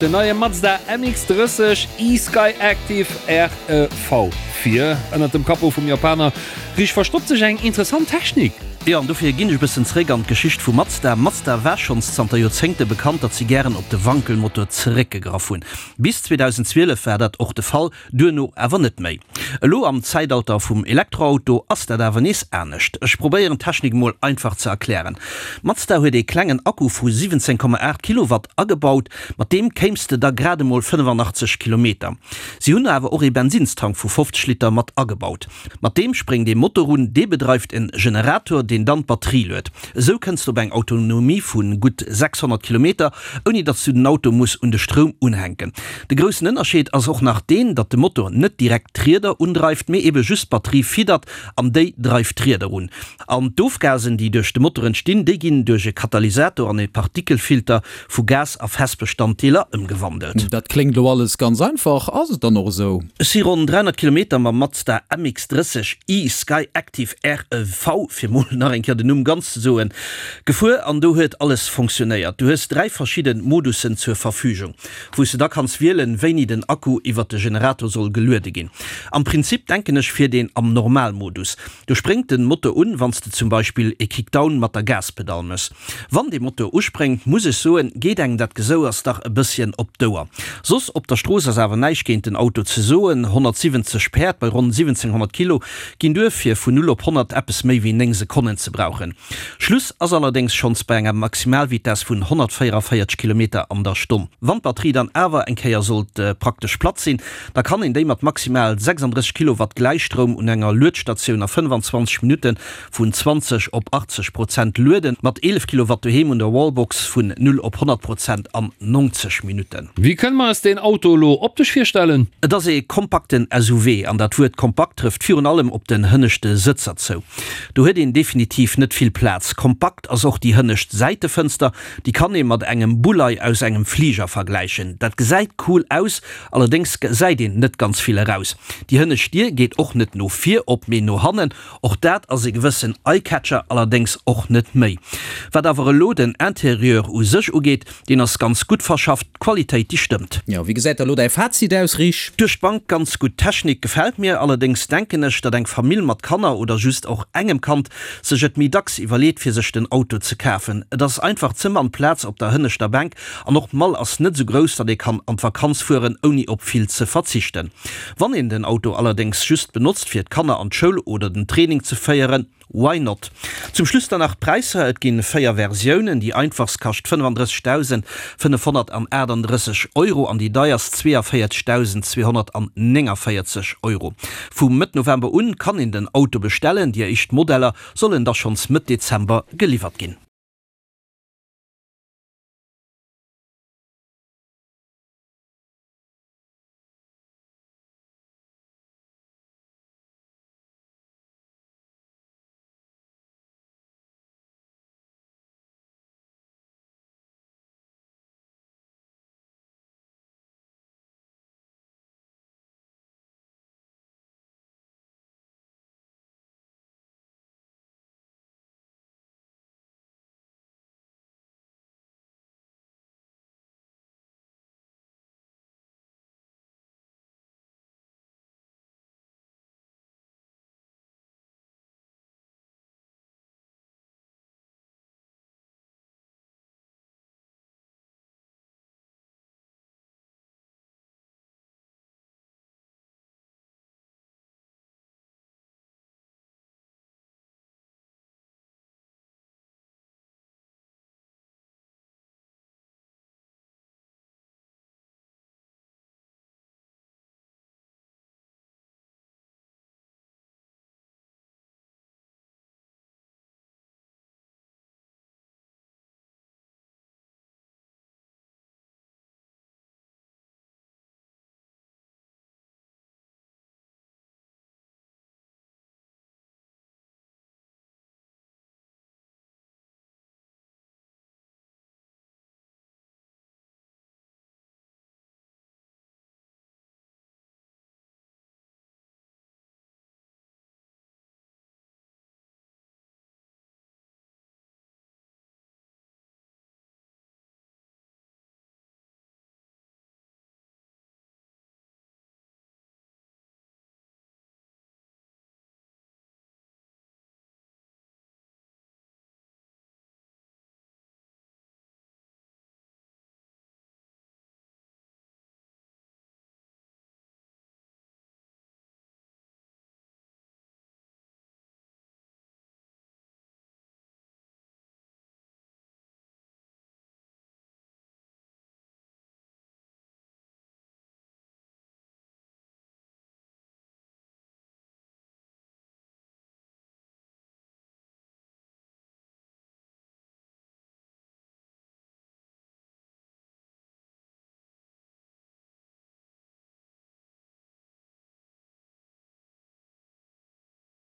Den neie Mazda MX-30 e-Skyactiv REV. Vir ënnert dem Capot vum Japaner riicht verstoppt sech eng interessant Technik. Jo, an dofir ginn ech e bëssen zeréck an d'Geschicht vu Mazda. Mazda war schonns zanter Joerzéngte bekannt, datt si gären op de Wankelmotor zeréckgegraff hunn. Bis 2012 war dat och de Fall. Duerno awer net méi. Elo am Zäitalter vum Elektroauto ass dat awer nees anescht. Ech probéieren d'Technik mol einfach ze erklären. Mazda huet ee klengen Akku vu 17,8 Kilowatt agebaut, mat deem kéims de da grad emol 85 Kilometer. Si hunn awer och ee Bensinnstank vu 50 Liter mat agebaut. Mat deem spréngt ee Motor un, dee bedreift en Generator, deen dann d'Batterie luet. Esou kënns de op eng Autonomie vu gutt 600 Kilometer, ouni datt s du den Auto muss un de Stroum unhänken. De groussen Ënnerscheed ass och nach deen, datt de Motor net direkt d'Rieder undreift, mee ebe just d'Batterie fiddert an déi dreift d'Rieder un. An d'Ofgasen, déi duerch de Motor entstinn, déi ginn duerch e Katalysator an e Partikelfilter vu Gas a Festbestanddeeler ëmgewandelt. Dat kléngt elo alles ganz einfach, ass et dann och esou? Ech si ronn 300 Kilometer mam Mazda MX-30 i Skyactiv REV, fir mol nach eng Kéier den Numm ganz ze soen, gefuer an do huet alles fonctionnéiert. Du hues 3 verschidden Modussen zur Verfügung, wou s de da kanns wielen, wéini den Akku iwwert de Generator soll geluede ginn. Am Prinzip denken ech fiert een am Normalmodus. Do spréngt den Motor un, wann s de zum Beispill e Kickdown mat der Gaspedall mëss. Wann dee Motor uspréngt, muss ech soen, geet engem dat Gesouers dach e bësschen op d'Ouer. Soss op der Strooss ass awer näischt géint den Auto ze soen, 170 Päerd bei ronn 1700 Kilo ginn duer fir vun 0 op 100 eppes méi wéi 9 Sekonnen ze brauchen. Schluss ass allerdéngs schonns bei enger Maximalvitess vun 144 Kilometer an der Stonn. Wann d'Batterie dann awer eng Kéier sollt praktesch platt sinn, da kann een déi mat maximal 36 Kilowatt Gläichstroum un enger Luedstatioun a 25 Minutte Vun 20 op 80 Prozent lueden, mat 11 Kilowatt doheem un der Wallbox vun 0 op 100 Prozent an 90 Minutten. Wéi kënne mer eis deen Auto elo optesch virstellen? Et ass ee kompakten SUV, an dat Wuert kompakt trëfft virun allem op den hënneschte Sëtzer zou. Do huet een definitiv net vill Plaz. Kompakt ass och déi hënnescht Säitefënster, déi kann ee mat engem Bullei aus engem Fliger vergläichen. Dat gesäit cool aus, allerdéngs gesäit een net ganz vill eraus. Déi hënnescht Dier geet och net no vir op, mee no hannen. Och dat ass e gewëssen Eye-Catcher, allerdéngs och net méi. Wat awer elo den Interieur u sech ugeet, deen ass ganz gutt verschafft, d'Qualitéit déi stëmmt. Jo, wéi gesäit da lo däi Fazit aus, Rich? Duerch d'Bank ganz gutt, d'Technik gefält mir, allerdéngs denken ech, datt eng Famill mat Kanner oder just och engem Kand sech et méi dacks iwwerleet fir sech den Auto ze kafen. Et ass einfach ze mann Plaz op der hënneschter Bänk an och d'Mall ass net sou grouss, datt ee kann an d'Vakanz fueren ouni op vill ze verzichten. Wann een den Auto allerdéngs just benotzt fir d'Kanner an d'Schoul oder den Training ze féieren, why not? Zum Schluss dann nach d'Präisser, Et ginn 4 Versiounen, déi einfachst kascht 35.538 Euro an déi deierst 42.249 Euro. Vu Mëtt November un kann een den Auto bestellen, déi éischt Modeller sollen da schonns Mëtt Dezember geliwwert ginn.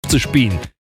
50 Been.